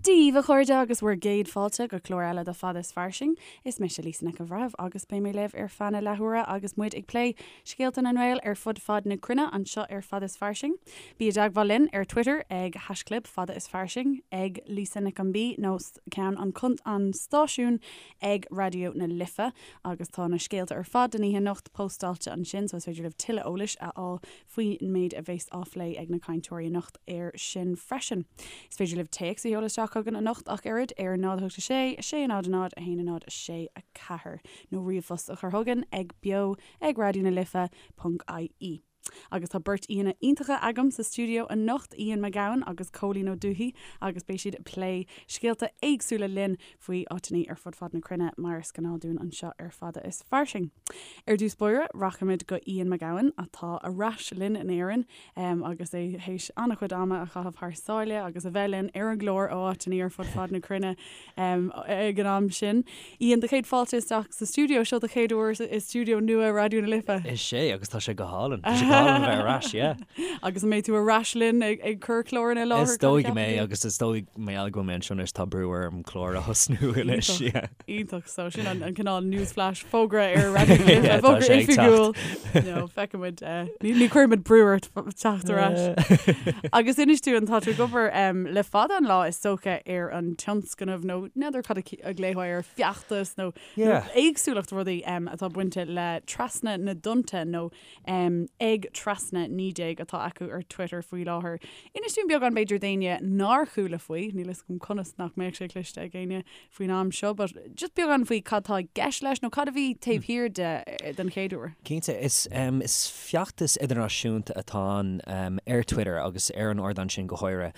Dia daoibh, a chairde, agus bhur gcéad fáilte go clár eile de Fada is Fairsing. Is mise Lisa Nic an Bhreithimh agus beidh mé libh ar feadh na leathuaire agus muid ag plé scéalta na nGael ar fud fad na cruinne anseo ar Fada is Fairsing. Bí i dteagmháil linn ar Twitter ag haischlib Fada is Fairsing, ag Lisa Nic an B nó ceann an an stáisiúin ag Raidió na Life agus tá na scéalta ar fad don oíche anocht póstáilte ansin so is féidir libh tuilleadh eolais a fháil faoin méid a bheas á phlé ag na cainteoirí anocht air sin freisin. Is féidir libh téacs a sheoladh isteach chugainn anocht ach oiread ar 0 8 6 6 0 0 1 0 6 4 nó ríomhphost a chur chugainn ag beo ag raidió na life ponc ie. Agus tá beirt aíonna iontacha agam sa stiúideo anocht, Ian Mac Gabhann agus Cóilín Ó Dubhthaigh agus beidh siad ag plé scéalta éagsúla linn faoi áiteanna ar fud fad na cruinne mar is gnáth dúinn anseo ar Fada is Fairsing. Ar dtús báire, rachaimid go Ian Mac Gabhann atá ar ais linn in Éirinn agus é théis an-chuid ama a chaitheamh thar sáile agus a bheith linn ar an gclár ó áiteanna ar fud fad na cruinne ag an am sin. Ian, do chéad fáilte isteach sa stiúideo, seo do chéad uair i stiúideo nua Raidió na Life. Is é, agus tá sé go hálainn. Tá sé go hálainn a bheith ar ais, yeah. Agus an mbeidh tú ar ais linn ag cur cláranna i láthair? Is dóigh go mbeidh, agus is dóigh mar gheall go bhfuil mé anseo anois tá brú orm clár a thosnú anois, yeah. Iontach, so sin an cineál newsflash, fógra ar Raidió na Life, fógra oifigiúil. No, feicfimid, ní chuirfimid brú ort teacht ar ais. Agus inis dúinn, tá tú ag obair le fada an lá is dócha ar an tionscnamh nó n'fheadar cad a ghlaofá air, feachtas nó éagsúlacht rudaí atá bainte le Trasna na dTonnta nó ag Trasna 19 atá acu ar Twitter faoi láthair. Inis dúinn beagán b'fhéidir d'éinne nár chuala faoi, níl fhios agam conas nach mbeadh sé cloiste ag éinne faoin am seo, but just beagán faoi cad tá i gceist leis nó cad a bhí taobh thiar de den chéad uair. Cinnte, is is feachtas idirnáisiúnta atá ann ar Twitter agus ar an ardán sin go háirithe.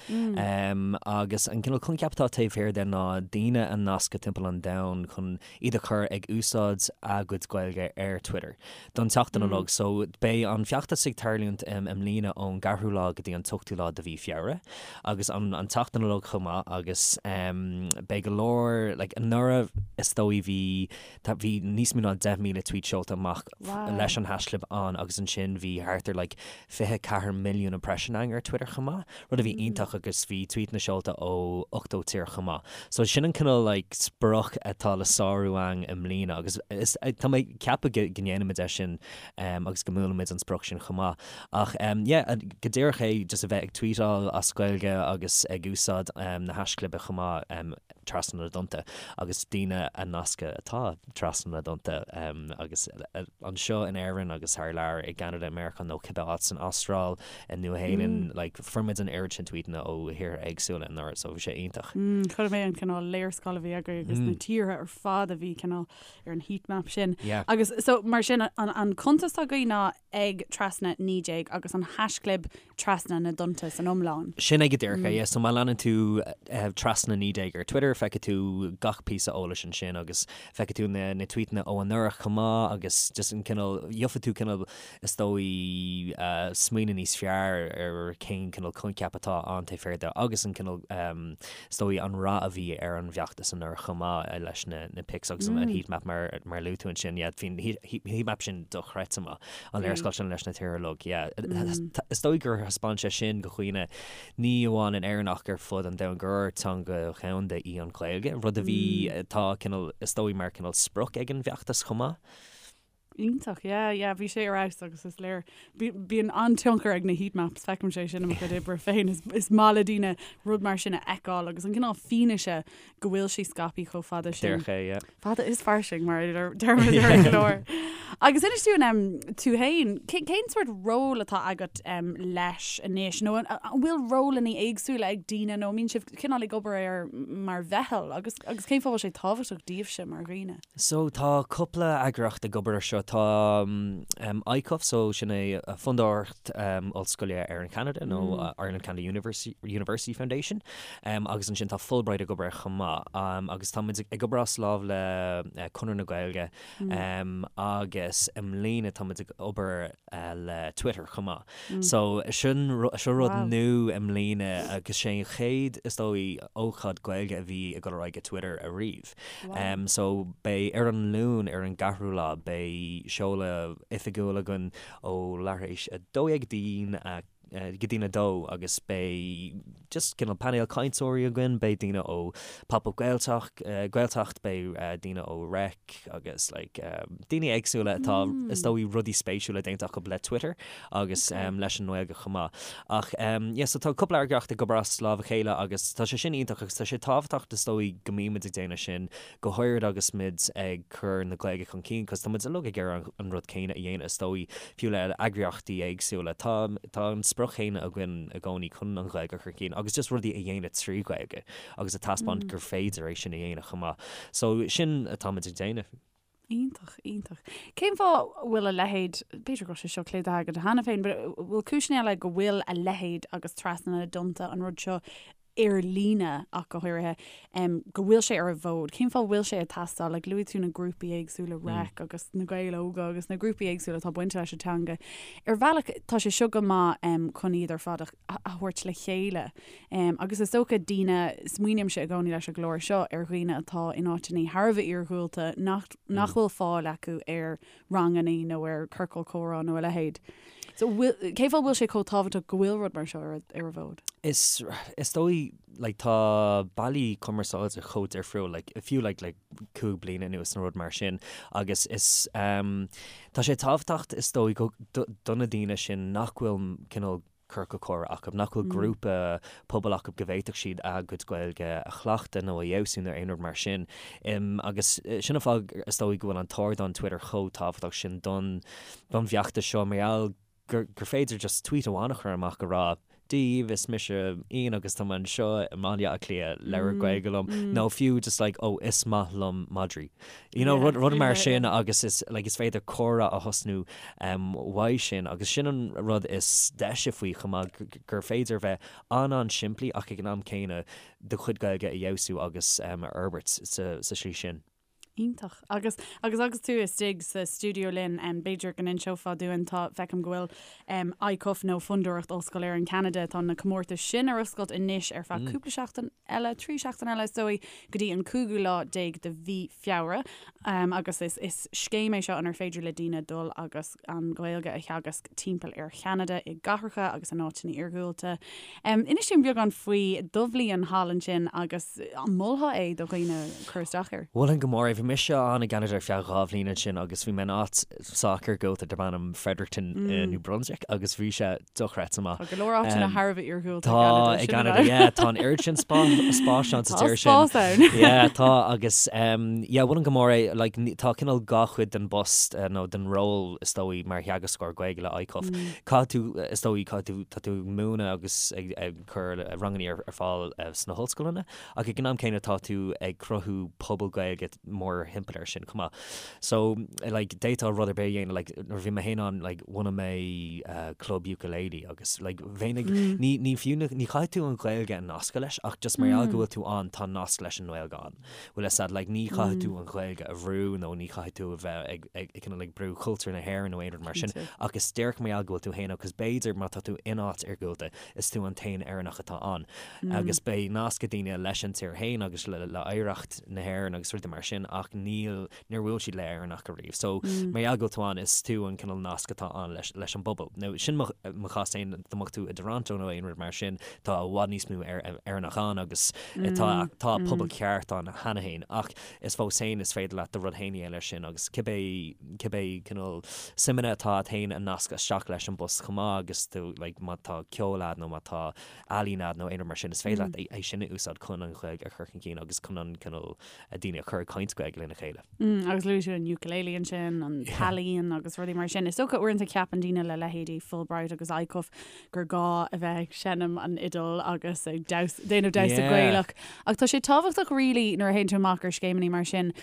Agus an cineál coincheap atá taobh thiar de ná daoine a nascadh timpeall an domhain chun iad a chur ag úsáid a gcuid Gaeilge ar Twitter don tseachtain uilig. So beidh an feachtas ag tarlúint i mbliana ón gceathrú lá go dtí an t-ochtú lá de mhí Feabhra agus an an tseachtain uilig chomh maith agus beidh go leor like anuraidh is dóigh bhí tá bhí níos mó ná 10,000 tweet seolta amach leis an haischlib ann agus ansin bhí thart ar like 24 milliún impression ann ar Twitter chomh maith, rud a bhí iontach agus bhí tweetanna seolta ó 80 tír chomh maith. So sin an cineál like sprioc atá le sárú ann i mbliana agus is tá mé ag ceapadh go go ndéanfaimid é sin agus go mbuailfimid an sprioc sin chomh maith. Ach yeah go díreach é just a bheith ag tweetáil as Gaeilge agus ag úsáid na haischlibe chomh maith trasna na dtonnta agus daoine a nascadh atá trasna na dtonnta agus anseo in Éirinn agus thar lear i gCeanada, i Meiriceá nó cibé áit san Astráil, i Nua-Shéalainn, like fuair muid an oiread sin tweetanna ó thíortha éagsúla anuraidh so bhí sé iontach. Chonaic mé an cineál léarscáil a bhí agaibh agus na tíortha ar fad a bhí cineál ar an heat map sin. Yeah. Agus so mar sin an an cuntas atá agaibh ná ag trasna 19 agus an haischlib trasna na dtonnta san iomlán. Sin é go díreach é, yeah. So má leanann tú trasna 19 ar Twitter, feicfidh tú gach píosa eolais ansin agus feicfidh tú na na tweetanna ó anuraidh chomh maith agus just an cineál, gheobhaidh tú cineál is dóigh smaoineamh níos fearr ar cén cineál coincheap atá ann taobh thiar de agus an cineál is dóigh an rath a bhí ar an bhfeachtas anuraidh chomh maith leis na na pics agus an heat map mar mar a luaigh tú ansin, yeah, bhí an heat map sin dochreidte maith. An léarscáil sin leis na tíortha uilig, yeah. Is dóigh gur thaispeáin sé sin do dhaoine, ní amháin in Éirinn ach ar fud an domhain, gur teanga dhomhanda í an Ghaeilge, rud a bhí, atá cineál, is dóigh mar cineál sprioc ag an bhfeachtas chomh maith. Iontach, yeah, yeah, bhí sé ar fheabhas agus is léir, bíonn an-tionchar ag na heat maps, feicim sé sin i mo chuid oibre féin, is maith le daoine rud mar sin a fheiceáil agus an cineál fianaise go bhfuil sí scaipthe chomh fada sin. Díreach é, yeah. Fada is fairsing, mar a deirimid ar an gclár. Agus inis dúinn tú féin, cén sórt ról atá agat leis anois, nó an bhfuil rólanna éagsúla ag daoine nó an mbíonn sibh cineál ag obair air mar mheitheal agus agus cén fáth a bhfuil sé tábhachtach daoibhse mar dhaoine? So tá cúpla eagraíocht ag obair ar seo. Tá ICUF, so sin é Fondúireacht Ollscoile Éireann-Cheanada nó Ireland Canada University Foundation. Agus ansin tá Fulbright ag obair air chomh maith. Agus tá muid ag obair as lámh le Conradh na Gaeilge agus i mbliana tá muid ag obair le Twitter chomh maith. So sin seo rud nua i mbliana agus sé an chéad is dóigh ócáid Gaeilge a bhí ag dul ar aghaidh ag Twitter ariamh. So beidh ar an Luan ar an gceathrú lá beidh seoladh oifigiúil againn ó leathuair tar éis 12 go dtí. Go dtí'n 2 agus beidh just cineál painéal cainteoirí againn, beidh daoine ó Pop Up Gaeltacht, Gaeltacht, beidh daoine ó Reic agus like daoine éagsúla atá is dóigh rudaí spéisiúla déanta acu le Twitter agus leis an nGaeilge chomh maith. Ach yeah so tá cúpla eagraíocht ag obair as lámh a chéile agus tá sé sin iontach agus tá sé tábhachtach is dóigh go mbímid ag déanamh sin go háirid agus muid ag cur na Gaeilge chun cinn, cos tá muid uilig ag iarraidh an rud céanna a dhéanamh is dóigh, fiú le eagraíochtaí éagsúla. Tá tá an sprioc chéanna againn i gcónaí chun an Ghaeilge a chur chun cinn agus just rudaí a dhéanamh trí Ghaeilge agus a taispeáint gur féidir é sin a dhéanamh chomh maith. So sin atá muid ag déanamh. Iontach, iontach. Cén fáth a bhfuil a leithéid, b'fhéidir go bhfuil sé seo clúdaithe agat cheana féin, but bhfuil cúiseanna eile go bhfuil a leithéid agus Trasna na dTonnta an rud seo ar líne ach go háirithe, go bhfuil sé ar an bhfód? Cén fáth a bhfuil sé ag teastáil? Like luaigh tú na grúpaí éagsúla, Reic agus na Gaeil Óga agus na grúpaí éagsúla atá bainte leis an teanga. Ar bhealach tá sé seo go maith chun iad ar fad a thabhairt le chéile. Agus is dócha daoine, smaoinímse i gcónaí leis an gclár seo ar dhaoine atá in áiteanna thar a bheith iarghúlta nach nach bhfuil fáil acu ar ranganna nó ar ciorcal comhrá nó a leithéid. So cén fáth a bhfuil sé chomh tábhachtach go bhfuil rud mar seo ar ar an bhfód? Is is dóigh like tá bealaí cumarsáide chomh difriúil like fiú like le 5 bliana anuas nó rud mar sin agus is um, tá sé tábhachtach is dóigh go do, do na daoine sin nach bhfuil cineál ciorcal comhrá acu, nach bhfuil grúpa pobail acu go bhféadfadh siad a gcuid Gaeilge a chleachtadh nó a fheabhsú nó aon rud mar sin. Agus sin an fáth is dóigh go bhfuil an t-ardán Twitter chomh tábhachtach sin don don bhfeachtas seo mar gheall gur gur féidir just tweet amháin a chur amach a rá Dia daoibh, is mise Ian agus tá mé anseo i mBaile Átha Cliath, labhair Gaeilge liom nó fiú just like oh is maith liom madraí. You know, rud rud mar sin agus is like is féidir comhrá a thosnú uaidh sin agus sin an rud is deise faoi chomh maith gur féidir bheith an-an-simplí ach ag an am céanna do chuid Gaeilge a fheabhsú agus a fhorbairt sa slí sin. Iontach. Agus agus agus tú istigh sa stiúideo linn, b'fhéidir go n-inseofá dúinn, tá, feicim go bhfuil ICUF nó Fondúireacht Ollscoil Éireann Ceanada, tá na comórtais sin ar oscailt anois ar feadh cúpla seachtain eile, 3 seachtain eile is dóigh, go dtí an cúigiú lá déag de mhí Feabhra agus is is scéim é seo inar féidir le daoine dul agus an Ghaeilge a theagasc timpeall ar Cheanada i gcathracha agus in áiteanna iargúlta. Inis dúinn beagán faoi do bhliain thall ansin agus an molfá é do dhaoine cur isteach air? Mholfainn go mór é. Bhí mise ann i gCeanada ar feadh 2 bhliain ansin agus bhí mé in áit sách iargúlta darb ainm Fredericton i New Brunswick agus bhí sé dochreidte maith. Tá go leor áiteanna thar a bheith iargúlta i gCeanada. Tá i gCeanada, yeah. Tá an oiread sin spáis ann sa tír sin. Tá spás ann. Yeah, tá agus yeah, mholfainn go mór é, like tá cineál dhá chuid den bpost nó den ról is dóigh mar theagascóir Gaeilge le ICUF. Caithfidh tú, is dóigh, caithfidh tú, tá tú ag múineadh agus ag cur ranganna ar fáil sna hollscoileanna ach ag an am céanna tá tú ag cruthú pobal Gaeilge mórthimpeall air sin chomh maith. So, like, d'fhéadfá rud ar bith a dhéanamh, like, nuair a bhí mé féin ann, like, bhunaigh mé club ukulele agus, like, bheinn ag, ní, ní fiú, ní chaithfidh tú an Ghaeilge a nascadh leis ach just mar gheall go bhfuil tú ann, tá nasc leis an nGaeilge ann. Bhfuil fhios a'd, like, ní chaithfidh tú an Ghaeilge a bhrú nó ní chaithfidh tú a bheith ag, ag, ag cineál ag brú cultúr na hÉireann nó aon rud mar sin ach is díreach mar gheall go bhfuil tú féin ann, 'cause b'fhéidir má tá tú in áit iargúlta, is tú an t-aon Éireannach atá ann agus beidh nasc ag daoine leis an tír féin agus le hoidhreacht na hÉireann agus rudaí mar sin ach níl, níor bhuail siad le Éireannach ariamh. So mar gheall go bhfuil tú ann, is tú an cineál nasc atá ann leis, leis an bpobal. Now sin mo, mo chás féin, dá mbeadh tú i dToronto nó aon rud mar sin, tá i bhfad níos mó Éireannach ann agus tá, tá pobal ceart ann cheana féin ach is fós féin is féidir leat do rud féin a dhéanamh leis sin agus cibé, cibé cineál suimeanna atá a't féin a nascadh isteach leis an bpost chomh maith agus tú like má tá ceol a'd nó má tá ealaín a'd nó aon rud mar sin is féidir leat é sin a úsáid chun an Ghaeilge a chur chun cinn agus chun an cineál daoine a chur ag caint Gaeilge lena chéile. Agus luaigh tú an ukulele ansin, an t-ealaíon agus rudaí mar sin. Is dócha uaireanta ceapann daoine le leithéidí Fulbright agus ICUF gur gá a bheith ag seinm an fhidil agus ag déanamh damhsa Gaelach. Ach tá sé tábhachtach really nuair a théann tú amach ar scéimeanna mar sin,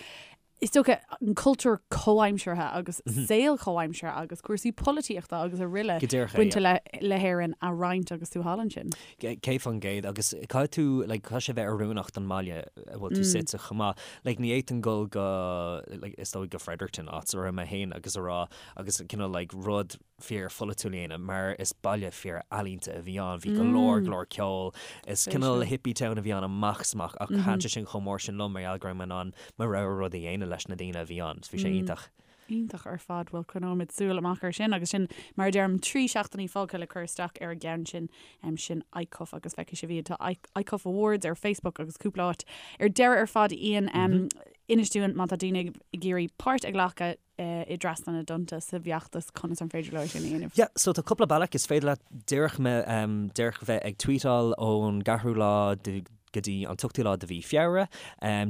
is dócha an cultúr comhaimseartha agus saol comhaimseartha agus cúrsaí polaitíochta agus araile bainte le le hÉirinn a roinnt agus tú thall ansin. 100% agus caithfidh tú like caithfidh sé bheith oiriúnach don mbaile a bhfuil tú suite chomh maith. Like ní fhéadfainn dul go like is dóigh go Fredericton áit a raibh mé féin agus a rá agus cineál like rud fíor pholaitiúil a dhéanamh mar is baile fíor ealaíonta a bhí ann, bhí go leor go leor ceoil, is cineál hippie town a bhí ann amach is amach ach thaitin sé sin chomh mór sin liom mar gheall go raibh mé in ann mo rogha rud a dhéanamh leis na daoine a bhí ann, so bhí sé iontach. Iontach ar fad, bhuel coinneoimid súil amach ar sin agus sin mar a deirim 3 seachtainí fágtha le cur isteach ar an gceann sin, sin ICUF agus feicfidh sibh iad, tá ICUF Awards ar Facebook agus cúpla áit. Ar deireadh ar fad Ian, inis dúinn má tá daoine ag iarraidh páirt a ghlacadh i dTrasna na dTonnta sa bhfeachtas conas an féidir leo é sin a dhéanamh? Yeah, so tá cúpla bealach, is féidir leat díreach díreach bheith ag tweetáil ón gceathrú lá de go dtí an t-ochtú lá de mhí Feabhra,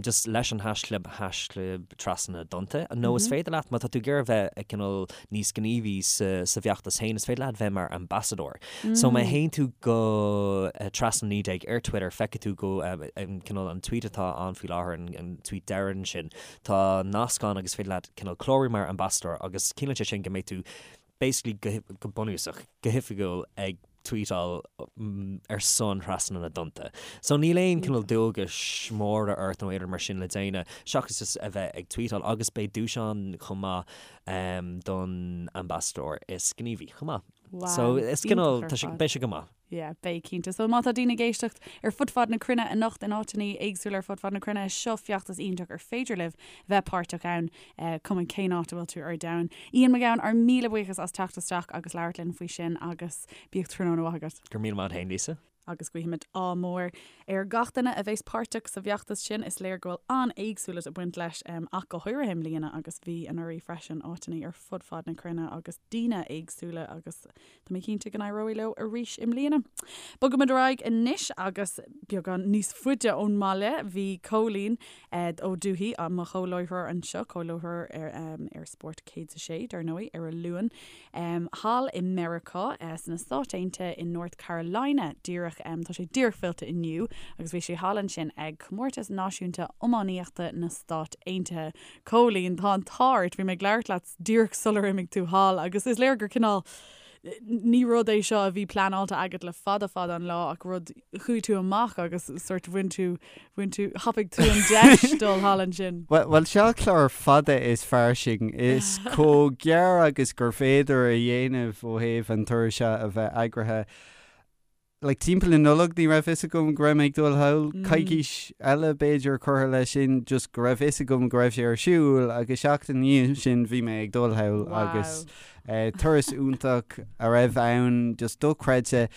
just leis an haischlib, haischlib Trasna na dTonnta. Nó is féidir leat, má tá tú ag iarraidh bheith ag cineál níos gníomhaí sa sa bhfeachtas féin, is féidir leat bheith mar ambassadóir. So má théann tú go Trasna 19 ar Twitter, feicfidh tú go cineál an tweet atá ann faoi láthair, an tweet deireanach sin, tá nasc ann agus is féidir leat cineál clárú mar ambassadóir agus ciallaíonn sé sin go mbeidh tú basically go bunúsach, go hoifigiúil ag tweetáil ar son Thrasna na dTonnta. So níl aon cineál dualgais móra ort nó aon rud mar sin le déanamh seachas just a bheith ag tweetáil agus beidh duais ann chomh maith don ambassadóir is gníomhaí chomh maith. So is cineál, tá sé, beidh sé go maith. Yeah, beidh cinnte. So má tá daoine ag éisteacht ar fud fad na cruinne anocht in áiteanna éagsúla ar fud fad na cruinne, seo feachtas iontach ar féidir libh bheith páirteach ann, cuma cén áit a bhfuil tú ar domhan. Ian Mac Gabhann, ár míle buíochas as teacht isteach agus labhairt linn faoi sin agus bíodh tráthnóna mhaith agat. Go raibh míle maith agat féin, Lisa. Agus guímid ádh mór ar gach duine a bheas páirteach sa bhfeachtas sin. Is léir go bhfuil an-éagsúlacht ag baint leis ach go háirithe i mbliana agus bhí anuraidh freisin, áiteanna ar fud fad na cruinne agus daoine éagsúla agus Tá mé cinnte go n-éireoidh leo arís i mbliana. Bogaimid ar aghaidh anois agus beagán níos faide ón mbaile. Bhí Cóilín Ó Dubhthaigh, mo chomhláithreoir anseo, comhláithreoir ar Spórt 106, dar ndóigh, ar an Luan, thall i Meiriceá, sna Stáit Aontaithe i North Carolina díreach. Tá sé díreach fillte inniu agus bhí sé thall ansin ag Comórtas Náisiúnta Iománaíochta na Stát Aontaithe. Cóilín, tá an t-ádh ort, bhí mé ag labhairt leat díreach sular imigh tú thall agus is léir gur cineál, ní rud é seo a bhí pleanáilte agat le fada fada an lá ach rud, chuaigh tú amach agus sort bhain tú, bhain tú, thapaigh tú an deis dul thall ansin. Bhuel, seo clár fada is fairsing, is chomh gearr agus gur féidir a dhéanamh ó thaobh an turas seo a bheith eagraithe. Like, timpeall na Nollag ní raibh fhios agam go raibh mé ag dul thall, coicís eile b'fhéidir curtha leis sin, just go raibh fhios agam go raibh sé ar siúl agus seachtain ina dhiaidh sin bhí mé ag dul thall agus turas iontach a raibh ann, just dochreidte.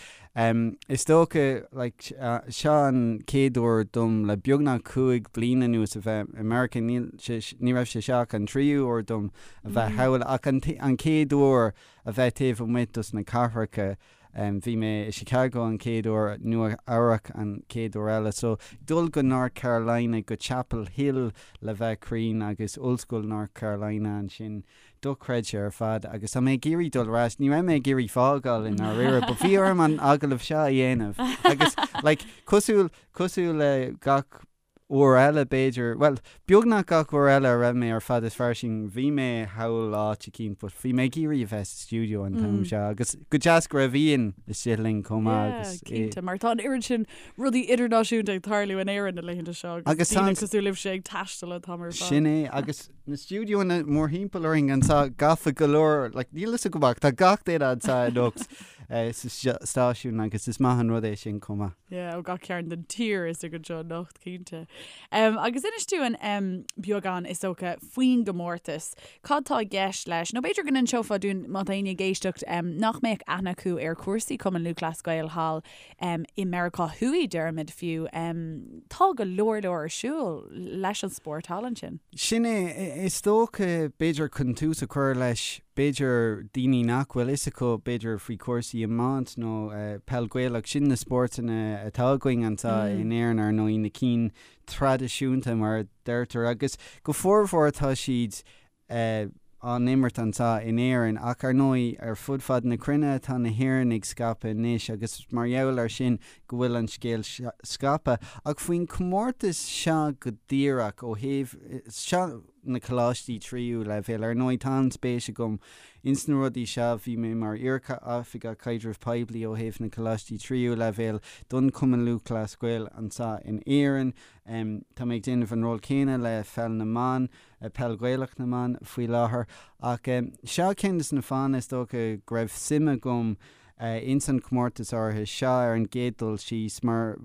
Is dócha, like, seo an chéad uair dom le beagnach 5 bliana anuas a bheith i Meiriceá, níl sé, ní raibh sé seo ach an tríú huair dom a bheith thall ach an chéad uair a bheith taobh amuigh dos na cathracha. Bhí mé i Chicago an chéad uair, Nua Eabhrac an chéad uair eile. So, dul go North Carolina, go Chapel Hill le bheith cruinn agus Ollscoil North Carolina ansin, dochreidte ar fad agus tá mé ag iarraidh dul ar ais. Ní raibh mé ag iarraidh fágáil i ndáiríre but bhí orm an agallamh seo a dhéanamh agus like cosúil, cosúil le gach uair eile b'fhéidir, bhuel, beagnach gach uair eile a raibh mé ar Fad is Fairsing, bhí mé thall áit eicínt but bhí mé ag iarraidh a bheith sa stiúideo an t-am seo agus go deas go raibh Ian istigh linn chomh maith agus Yeah, cinnte, mar tá an oiread sin rudaí idirnáisiúnta ag tarlú in Éirinn na laethanta seo agus daoine cosúil libhse ag taisteal an t-am ar fad. Sin é, agus na stiúideoanna mórthimpeall orainn anseo gafa go leor, like níl fhios agam ach tá gach duine anseo anocht sa stáisiún agus is maith an rud é sin chomh maith. Yeah, ó gach cearn den tír istigh anseo anocht, cinnte. Um, agus inis dúinn um, beagán, is dócha, faoin gcomórtas. Cad tá i gceist leis? Nó b'fhéidir go n-inseofá dúinn, má tá éinne ag éisteacht, um, nach mbeadh aithne acu ar chúrsaí Cumann Lúthchleas Gael thall um, i Meiriceá Thuaidh, deirimid fiú. Um, tá go leor leor ar siúl leis an spórt thall ansin. Sin é, is dócha, b'fhéidir chun tús a chur leis, b'fhéidir daoine nach bhfuil fhios acu b'fhéidir faoi chúrsaí iomáint nó peil Ghaelach, sin na spórtanna atá againn anseo in Éirinn ar ndóigh, na cinn traidisiúnta mar a deirtear agus go formhór tá siad á n-imirt anseo in Éirinn ach ar ndóigh ar fud fad na cruinne tá na hÉireannaigh scaipthe anois agus mar gheall air sin go bhfuil an scéal scaipthe. Ach faoin chomórtas seo go díreach ó thaobh seo na coláistí tríú leibhéal. Ar ndóigh, tá an-spéis agam ins na rudaí seo. Bhí mé mar iar-oifigeach caidrimh poiblí ó thaobh na coláistí tríú leibhéal don Chumann Lúthchleas Gael anseo in Éirinn. Tá mé ag déanamh an ról céanna le Pheil na mBan, Peil Ghaelach na mBan, faoi láthair. Ach seo ceann de na fáthanna is dócha go raibh suim agam. ins an chomórtas áirithe seo ar an gcéad dul síos mar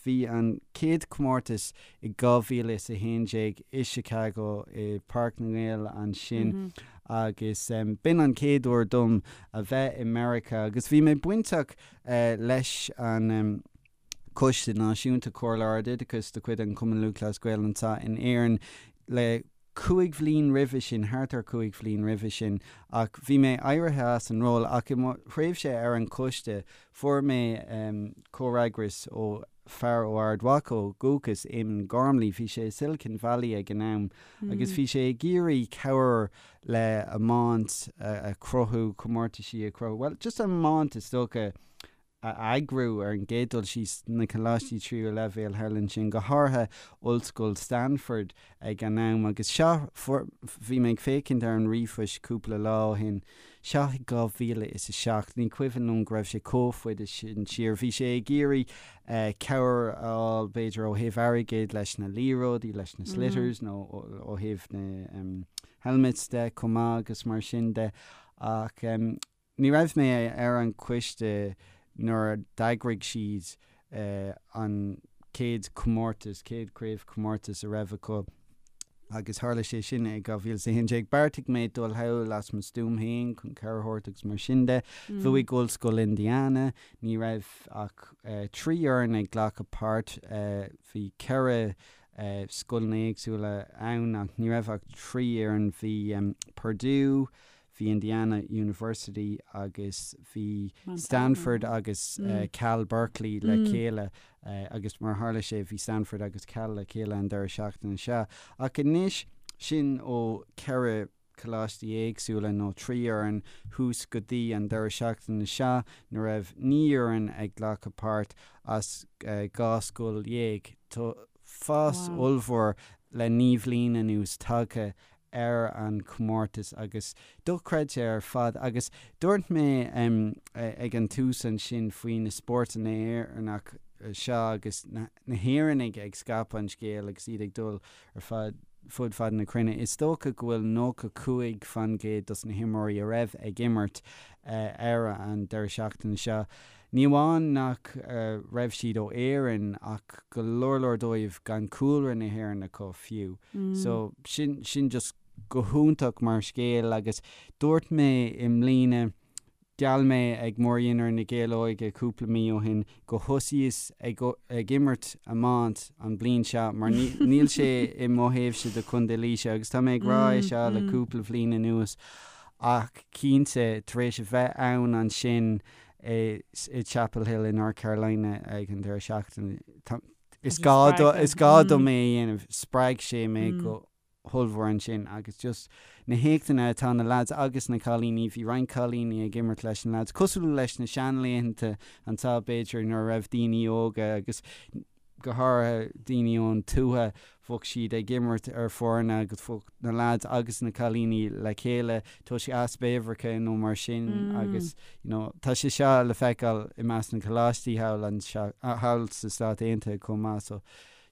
bhí an chéad chomórtas i 2011 i Chicago i Páirc na nGael ansin agus b'in an chéad uair dom a bheith i Meiriceá agus bhí mé bainteach leis an Coiste Náisiúnta Comhairle Ardoideachais de chuid an Chumann Lúthchleas Gael anseo in Éirinn le cúig bhliain roimhe sin, thart ar chúig bhliain roimhe sin, ach bhí mé éirithe as an ról ach i mo thréimhse ar an choiste fuair mé comhfhreagras ó fear ó Ard Mhacha ó dhúchas, Eamon Gormley, bhí sé i Silicon Valley ag an am agus bhí sé ag iarraidh cabhair le iomáint a chruthú, comórtaisí a chruthú, bhuel just iomáint is dócha. a eagrú ar an gcéad dul síos na coláistí tríú leibhéal thall ansin, go háirithe Ollscoil Stanford ag an am. Agus seo, bhí mé ag féachaint ar an ríomhphost cúpla lá ó shin, seo i 2007, ní cuimhin liom go raibh sé chomh fada sin siar, bhí sé ag iarraidh cabhair a fháil b'fhéidir ó thaobh airgid leis na liathróidí, leis na sliotars nó ó thaobh na helmets de chomh maith agus mar sin de ach. Ní raibh mé ar an choiste nuair a d'eagraigh siad an chéad chomórtas, chéad chraobhchomórtas a raibh acu agus tharla sé sin i 2011. Bheartaigh mé dul thall as mo stuaim féin chun cabhair a thabhairt agus mar sin de. Bhuaigh Ollscoil Indiana, ní raibh ach 3 fhoireann ag glacadh páirt, bhí 4 scoileanna éagsúla ann ach ní raibh ach 3 fhoireann, bhí Purdue, bhí Indiana University agus bhí Stanford agus Cal Berkeley le chéile agus mar a tharla sé bhí Stanford agus Cal le chéile an deireadh seachtaine seo. Ach anois, sin ó cheithre choláistí éagsúla nó 3 fhoireann thuas go dtí an deireadh seachtaine seo nuair a raibh 9 fhoireann ag glacadh páirt as 12 scoil. Tá fás ollmhór le 9 bhliain anuas tagtha ar an chomórtas agus dochreidte ar fad agus dúirt mé ag an tús ansin faoi na spórtanna Éireannach seo agus na hÉireannaigh ag scaipeadh an scéil agus iad ag dul ar fad fud fad na cruinne. Is dócha go bhfuil 95% dos na himreoirí a raibh ag imirt ar an deireadh seachtaine seo, ní amháin nach raibh siad ó Éirinn ach go leor leor dóibh gan cúlra na hÉireann acu fiú. So sin sin just go hiontach mar scéal agus dúirt mé i mbliana, gheall mé ag Mórdhinnéar na Gael Óige cúpla mí ó shin go thosaíos ag ag imirt iomáint an bliain seo mar níl sé i mo thaobhse de Chontae Laoise agus tá mé ag rá é seo le cúpla bhliain anuas ach cinnte tar éis a bheith ann ansin i Chapel Hill i North Carolina ag an deireadh seachtaine. Is gá is gá dom é a dhéanamh. Spreag sé mé go hollmhór ansin agus just na héachtanna atá na lads agus na cailíní, bhí roinnt cailíní ag imirt leis na lads, cosúil leis na seanlaethanta anseo b'fhéidir nuair a raibh daoine óga agus go háirithe daoine ón tuath, bheadh siad ag imirt ar foirne agus bheadh na lads agus na cailíní le chéile toisc easpa uimhreacha nó mar sin agus you know tá sé seo le feiceáil i measc na coláistí thall anseo, thall sa Stát Aontaithe chomh maith so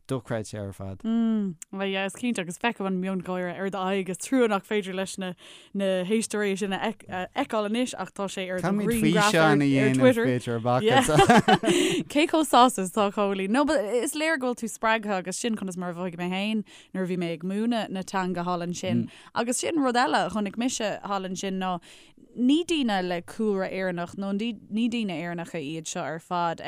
dochreidte ar fad. Mm, well yeah, is cinnte agus feicim an miongháire ar d'aghaidh is trua nach féidir leis na na héisteoirí sin a fheiceáil anois ach tá sé ar do ghrianghraf ar Twitter. B'fhéidir amach anseo. Cé chomh sásta is atá Cóilín? No, but is léir go bhfuil tú spreagtha agus sin conas mar a mhothaigh mé féin nuair a bhí mé ag múineadh na teanga thall ansin. Agus sin rud eile a chonaic mise thall ansin ná ní daoine le cúlra Éireannach nó ní daoine Éireannacha iad seo ar fad.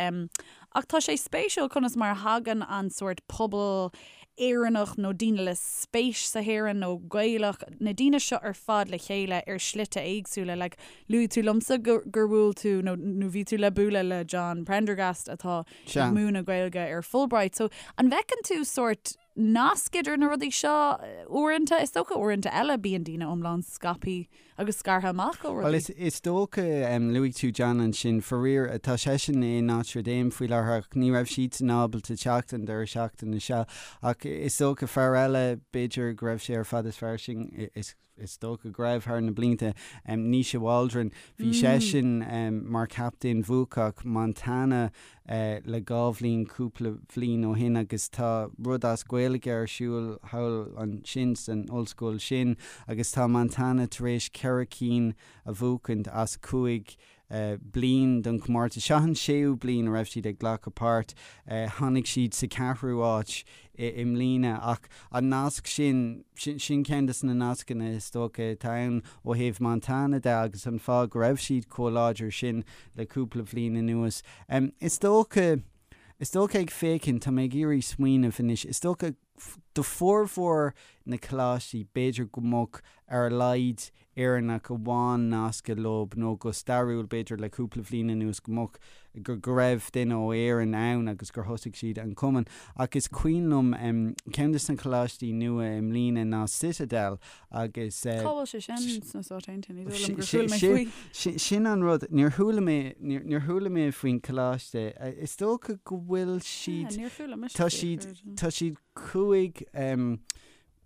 Ach tá sé spéisiúil conas mar a thagann an sórt pobal Éireannach nó daoine le spéis sa hÉireann nó Gaelach, na daoine seo ar fad le chéile ar shlite éagsúla. Like, luaigh tú liomsa gur bhuail tú nó nó bhí tú le bualadh le John Prendergast atá ag múineadh Gaeilge ar Fulbright. So, an bhfeiceann tú sórt nasc idir na rudaí seo uaireanta? Is dócha uaireanta eile bíonn daoine iomlán scaipthe agus scartha amach ó rudaí. Bhuel, is dócha, luaigh tú John ansin, faraor, tá seisean i Notre Dame faoi láthair ach ní raibh siadsan ábalta teacht an deireadh seachtaine seo. Ach is dócha fear eile, b'fhéidir go raibh sé ar Fada is Fairsing, is dócha go raibh thar na blianta, Naoise Waldron, bhí seisean mar chaptaen bhuacach Montana le dhá bhliain, cúpla bhliain ó shin agus tá rud as Gaeilge ar siúl thall ansin san ollscoil sin agus tá Montana tar éis ceithre cinn a bhuachaint as chúig. bliain den chomórtas. Seo an séú bliain a raibh siad ag glacadh páirt. Tháinig siad sa ceathrú áit i mbliana ach an nasc sin, sin ceann de na nascanna is dócha atá ann ó thaobh Montana de agus an fáth go raibh siad chomh láidir sin le cúpla bhliain anuas. Is dócha, is dócha ag féachaint, tá mé ag iarraidh smaoineamh anois, is dócha do formhór na coláistí b'fhéidir go mbeadh ar a laghad Éireannach amháin nasctha leo nó go stairiúil b'fhéidir le cúpla bhliain anuas go mbeadh, go, go raibh duine ó Éirinn ann agus gur thosaigh siad an cumann. Ach is cuimhin liom ceann de na coláistí nua i mbliana ná Citadel agus. Cá bhfuil sé sin sna Stáit Aontaithe? Ní dóigh liom gur chuala mé faoi. Sin an rud, níor chuala mé, níor chuala mé faoin choláiste. Is dócha go bhfuil siad, Níor chuala mise tá siad, tá siad 5,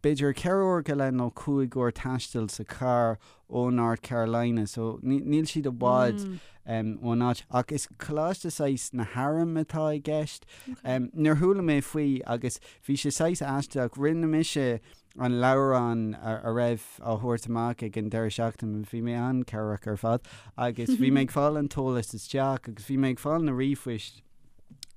b'fhéidir 4 uair go leith nó 5 uair taistil sa charr ó North Carolina so níl siad i bhfad ón áit ach is coláiste saghas na hairm atá i gceist. Níor chuala mé faoi agus bhí sé saghas aisteach, rinne mise an leabhrán a raibh á thabhairt amach ag an deireadh seachtaine, bhí mé an-chabhrach ar fad agus bhí mé ag fáil an t-eolas isteach agus bhí mé ag fáil na ríomhphoist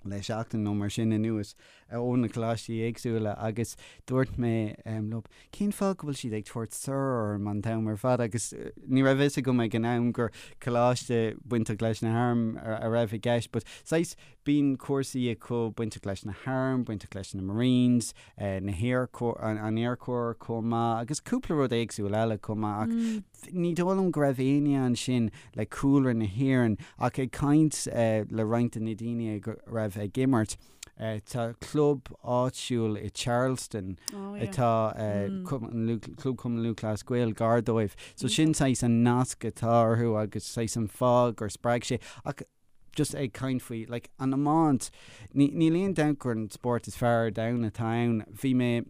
le seachtain nó mar sin anuas ó na coláistí éagsúla agus dúirt mé leo, cén fáth go bhfuil siad ag tabhairt sir orm an t-am ar fad agus ní raibh fhios agam ag an am gur coláiste bainteach leis na hairm a raibh i gceist but saghas bíonn cúrsaí acu bainteach leis na hairm, bainteach leis na Marines, na hAir Corps, an Air Corps chomh maith agus cúpla rud éagsúil eile chomh maith ach ní dóigh liom go raibh éinne ansin le cúlra na hÉireann ach ag caint le roinnt de na daoine a raibh ag imirt Tá club áitiúil i Charleston atá Club Chumann Lúthchleas Gael gar dóibh. So sin saghas an nasc atá orthu agus saghas an fáth gur spreag sé. Ach just ag caint faoi like an iomáint, níl aon dabht gur an spórt is fearr ar domhan atá ann. Bhí mé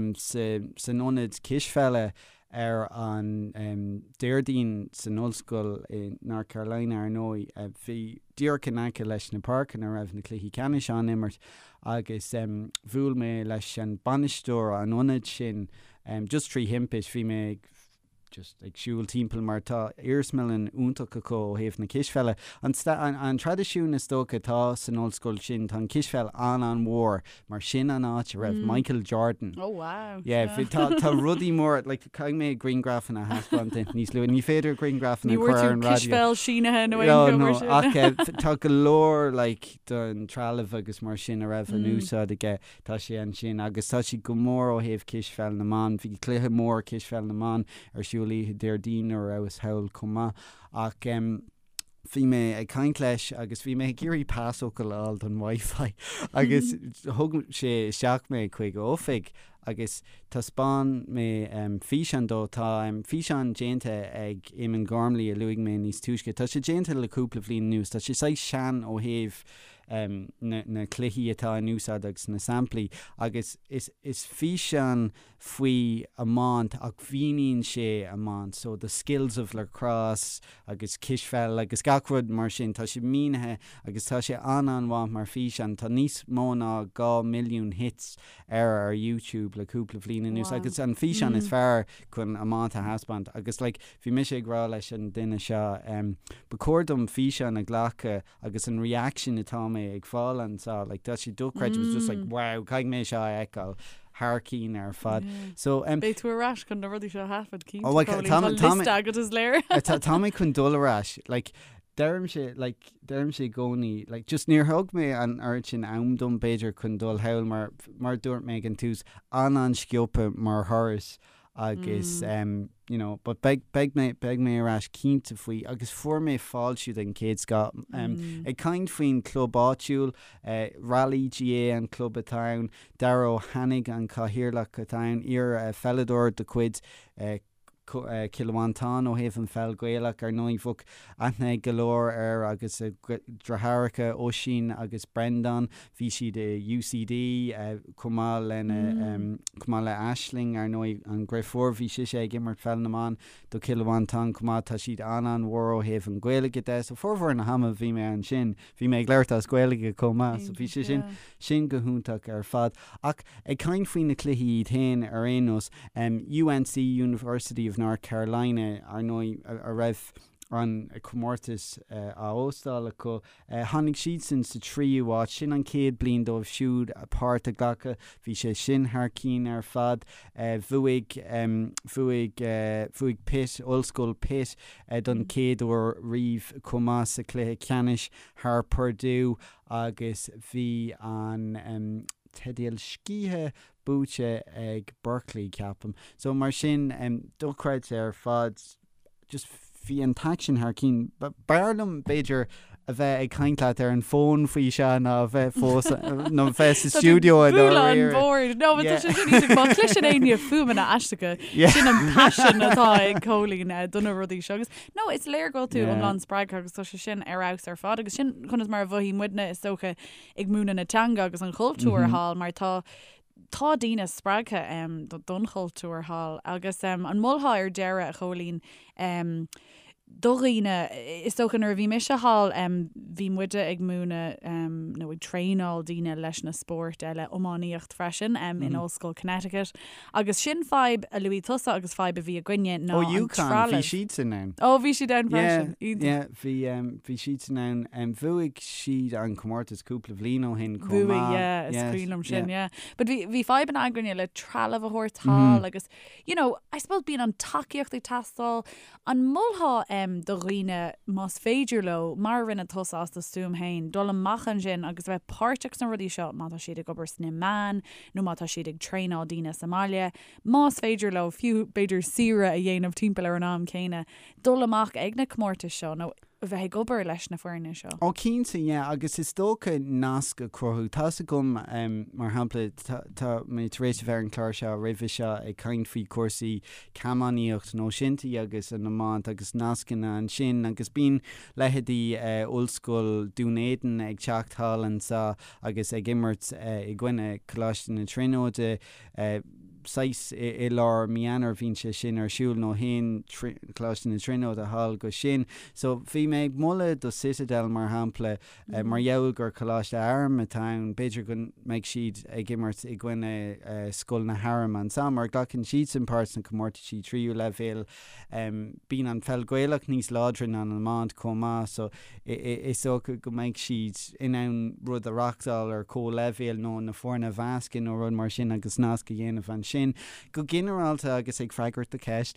san ionad cispheile Ar an Déardaoin san ollscoil i North Carolina, ar ndóigh, bhí díreach in aice leis na páirceanna a raibh na cluichí ceannais á n-imirt agus bhuail mé leis an bainisteoir an ionaid sin just trí thimpist. Bhí mé ag just ag siúl timpeall mar tá iarsmalann iontach acu ó thaobh na cispheile. An an traidisiún is dócha atá san ollscoil sin, tá an cispheil an-an-mhór mar sin an áit a raibh Michael Jordan. Oh wow. Yeah, bhí, tá, tá rudaí móra, like, caithfidh mé grianghrafanna a thaispeáint duit níos luaithe. Ní féidir grianghrafanna Ní a chur bhfuair ar tú an raidió. cispheil sínithe nó No, aon no, mar sin. ach eh, tá go leor like, den trealamh agus mar sin a raibh in úsáid aige, tá sé ansin agus tá siad go mór ó thaobh cispheil na mban. Bhí cluiche mór cispheil na mban ar siúl oíche Déardaoin nuair a rabhas thall chomh maith. Ach em, bhí mé ag caint leis agus bhí mé ag iarraidh pasfhocal a fháil don Wi-Fi agus thug sé isteach mé chuig a oifig agus thaispeáin mé físeán dó. Tá físeán déanta ag Eamon Gormley a luaigh mé níos túisce. Tá sé déanta le cúpla bhliain anuas. Tá sé saghas sean ó thaobh na cluichí atá in úsáid agus na samplaí agus is físeán faoi iomáint ach mhíníonn sé iomáint so the skills of lacrosse agus cispheil agus gach rud mar sin tá sé mínithe agus tá sé an-an-mhaith mar físeán tá níos mó ná 2 milliún hits air ar YouTube le cúpla bhliain anuas agus an físeán is fearr chun iomáint a thaispeáint agus like bhí mise ag rá leis an duine seo em ba chóir dom físeán a ghlacadh agus an reaction atá mé ag fáil anseo, like tá sé dochreidte, it was just like wow, caithfidh mé seo a fheiceáil thar cinn ar fad. So um, Beidh tú ar ais chun na rudaí seo a thaifead cinnte, Oh, like, Cóilín, tá tá tá liosta agat is léir. Tá tá mé chun dul ar ais, like deirimse, like deirimse i gcónaí, like just níor thug mé an oiread sin am dom b'fhéidir chun dul thall mar mar a dúirt mé ag an tús, an-an-sciobtha mar thuras agus you know but beidh beidh mé beidh mé ar ais cinnte faoi agus fuair mé fáiltiú den chéad scoth. Ag caint faoin club áitiúil, Raleigh GAA an club atá ann, Dara Ó hAnnaidh an cathaoirleach atá ann, iar pheileadóir de chuid Chill Mhantáin ó thaobh an pheil Ghaelach ar ndóigh bheadh aithne ag go leor air agus a dheartháireacha Oisín agus Breandán. Bhí siad i UCD chomh maith lena chomh maith le Aisling, ar ndóigh, an dheirfiúr. Bhí sise ag imirt pheil na mban do Chill Mhantáin chomh maith. Tá siad an-an-mhór ó thaobh an Ghaeilge de. So formhór na hama bhí mé ansin, bhí mé ag labhairt as Gaeilge chomh maith. So bhí sé sin sin go hiontach ar fad. Ach ag caint faoi na cluichí iad féin ar aon nós, UNC, University of North Carolina, ar ndóigh, a raibh. An comórtas á óstáil acu. Tháinig siadsan sa tríú háit. Sin an chéad bliain dóibh siúd páirt a ghlacadh. Bhí sé sin thar cinn ar fad. Bhuaigh, bhuaigh, bhuaigh Pitt, Ollscoil Pitt don chéad uair riamh chomh maith sa chluiche ceannais thar Purdue agus bhí an teideal scíthe buaite ag Berkeley, ceapaim. So mar sin, dochreidte ar fad. just bhí an t-aicsean thar cinn. B'fhearr liom, b'fhéidir, a bheith ag caint leat ar an bhfón faoi seo ná a bheith fós, nó a bheith sa stiúideo i dáiríre. An bord. No, but tá sé sin iontach. Má chloiseann éinne fuaimeanna aisteacha, sin an paisean atá ag Cóilín do na rudaí seo. Agus no, is léir go bhfuil tú iomlán spreagtha agus tá sé sin ar fheabhas ar fad. Agus sin conas mar a mhothaigh muidne, is dócha, ag múineadh na teanga agus an chultúir thall, mar tá tá daoine spreagtha don chultúr thall agus an molfá ar deireadh, a Chóilín, do dhaoine, is dócha nuair a bhí mise thall bhí muide ag múineadh nó ag traenáil daoine leis na spóirt eile, iománaíocht freisin in Ollscoil Connecticut agus sin fadhb a luaigh tusa agus fadhb a bhí againne ná an trealamh. Ó UConn, bhí siadsan ann. Ó bhí siad ann freisin, iontach. Yeah, bhí, bhí siadsan ann. Bhuaigh siad an comórtas cúpla bhliain ó shin chomh maith. Bhuaigh, yeah, is cuimhin liom sin, yeah. But bhí, bhí fadhbanna againne le trealamh a thabhairt thall agus, you know, I suppose bíonn an tacaíocht ag teastáil. An molfá em do dhaoine, más féidir leo, mar a rinne tusa as do stuaim féin, dul amach ansin agus a bheith páirteach sna rudaí seo má tá siad ag obair sna meáin nó má tá siad ag traenáil daoine sa mbaile, más féidir leo, fiú b'fhéidir saoire a dhéanamh timpeall ar an am céanna, dul amach ag na comórtais seo nó a bheith ag obair leis na foirne seo. Ó cinnte, yeah, agus is dócha nasc a chruthú. Tá's agam, mar shampla, tá mé tar éis a bheith ar an chlár seo roimhe seo ag caint faoi chúrsaí camánaíocht nó shinty agus an iomáint agus nascanna ansin agus bíonn leithéidí Ollscoil Dún Éideann ag teacht thall anseo agus ag imirt i gcoinne Coláiste na Tríonóide. saghas i lár mí Eanáir bhíonn sé sin ar siúl nó théann Coláiste na Tríonóide thall go sin. So bhí mé ag moladh do Citadel mar shampla mar gheall gur coláiste airm atá ann, b'fhéidir go mbeidh siad ag imirt i gcoinne Scoil na hAirm ansan mar glacann siadsan páirt sna comórtaisí tríú leibhéal. Bíonn an pheil Gaelach níos láidre ná an iomáint chomh maith so is dócha go mbeidh siad in ann rud a reachtáil ar comhleibhéal nó na foirne a mheascadh nó rud mar sin agus nasc a dhéanamh ansin. Go ginearálta agus ag freagairt do cheist,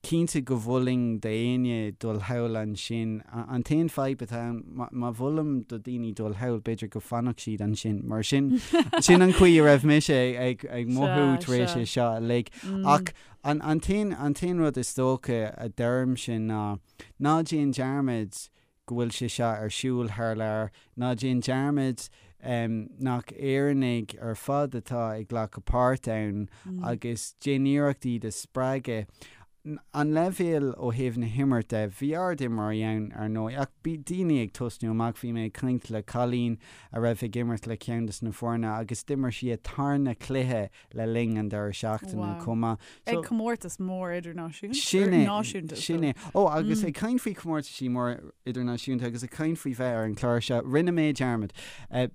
cinnte go mholfainn d'éinne dul thall ansin. An t-aon fadhb atá ann, má mholaim do daoine dul thall, b'fhéidir go bhfanfadh siad ansin mar sin sin an chaoi a raibh mise ag mothú tar éis é seo uilig. Ach an t-aon rud is dócha a deirimse ná, Ná déan dearmad go bhfuil sé seo ar siúl thar lear, ná déan dearmad nach Éireannaigh ar fad atá ag glacadh páirt ann agus déan iarracht iad a spreagadh. An leibhéal ó thaobh na himirt de, bhí ard-imreoirí ann ar ndóigh ach bhí daoine ag tosnú amach, bhí mé ag caint le cailín a raibh ag imirt le ceann des na foirne agus d'imir sí a tarna cluiche le linn an deireadh seachtaine chomh maith. Ag comórtas mór idirnáisiúnta. Sin é. Náisiúnta. Sin é. Ó, agus ag caint faoi chomórtaisí mór idirnáisiúnta agus ag caint faoi bheith ar an chlár seo, rinne mé dearmad.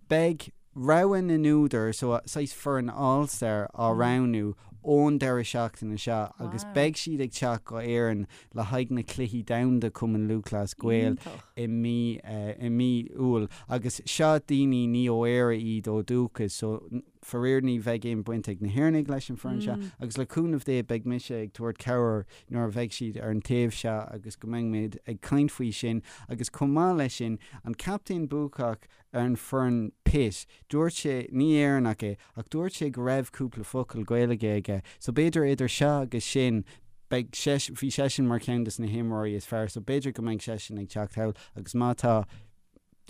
Beidh rogha na n-údar, so saghas foireann All-Star á roghnú ón deireadh seachtaine seo agus beidh siad ag teacht go Éirinn le haghaidh na Cluichí Domhanda Cumann Lúthchleas Gael i mí i mí Iúil agus seo daoine ní ó Éire iad ó dúchas so Faraor ní bheidh aon baint ag na hÉireannaigh leis an foireann seo agus le cúnamh Dé beidh mise ag tabhairt cabhair nuair a bheidh siad ar an taobh seo agus go mbeidh muid ag caint faoi sin agus chomh maith leis sin an captaen buacach ar an foireann Pitt dúirt sé, ní Éireannach é, ach dúirt sé go raibh cúpla focal Gaeilge aige so b'fhéidir idir seo agus sin beidh seisean, bhí seisean mar cheann des na himreoirí is fearr so b'fhéidir go mbeidh seisean ag teacht thall agus má tá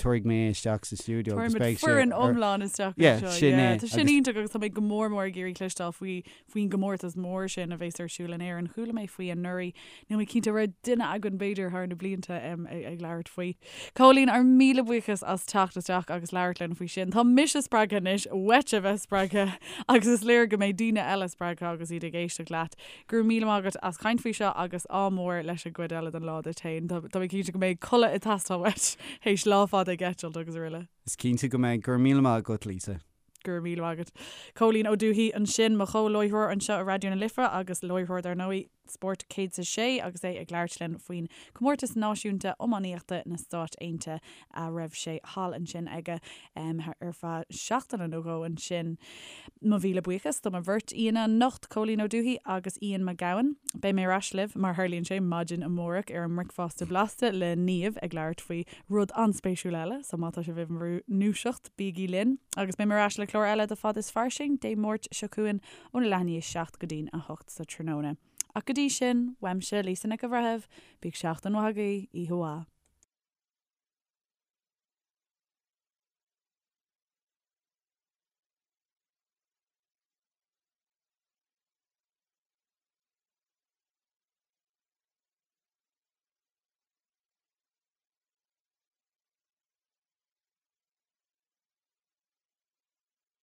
tabharfaidh mé é isteach sa stiúideo agus beidh sé foireann iomlán isteach Yeah, anseo. sin Yeah, é. Tá sin iontach agus tá mé go mór mór ag iarraidh cloisteáil faoi faoin gcomórtas mór sin a bheas ar siúl in Éirinn. Chuala mé faoi anuraidh. Níl mé cinnte raibh duine againn b'fhéidir thar na blianta um, ag, ag labhairt faoi. Cóilín, ár míle buíochas as teacht isteach agus labhairt linn faoi sin. Tá mise spreagtha anois, uait a bheith spreagtha agus is léir go mbeidh daoine eile spreagtha agus iad ag éisteacht leat. Go raibh míle maith agat as caint faoi seo agus ádh mór leis an gcuid eile den lá duit féin. Tá mé cinnte go mbeidh codladh ag teastáil uait théis lá fada ag eitilt agus araile. Is cinnte go mbeidh. Go raibh míle maith agat, Lisa. Go raibh míle maith agat. Cóilín Ó Dubhthaigh ansin, mo chomh-láithreoir anseo i Raidió na Life agus láithreoir dar ndóigh. Spórt 106 agus é ag labhairt linn faoin Comórtas Náisiúnta Iománaíochta na Stáit Aontaithe a raibh sé thall ansin aige ar feadh seachtaine nó dhó ansin. Mo mhíle buíochas do mo bheirt aíonna anocht, Cóilín Ó Dubhthaigh agus Ian Mac Gabhann. Beidh mé ar ais libh, mar tharlaíonn sé, maidin amárach ar an mBricfeasta Blasta le Niamh ag labhairt faoi rud an-spéisiúil eile, so má tá sibh i bhur ndúiseacht, bígí linn. Agus beidh mé ar ais le clár eile de Fad is Fairsing Dé Máirt seo chugainn óna leath i ndiaidh 7 go dtí'n 8 sa tráthnóna. Ach go dtí sin, uaimse, Lisa Nic an Bhreithimh, bíodh seachtain mhaith agaibh, oíche mhaith.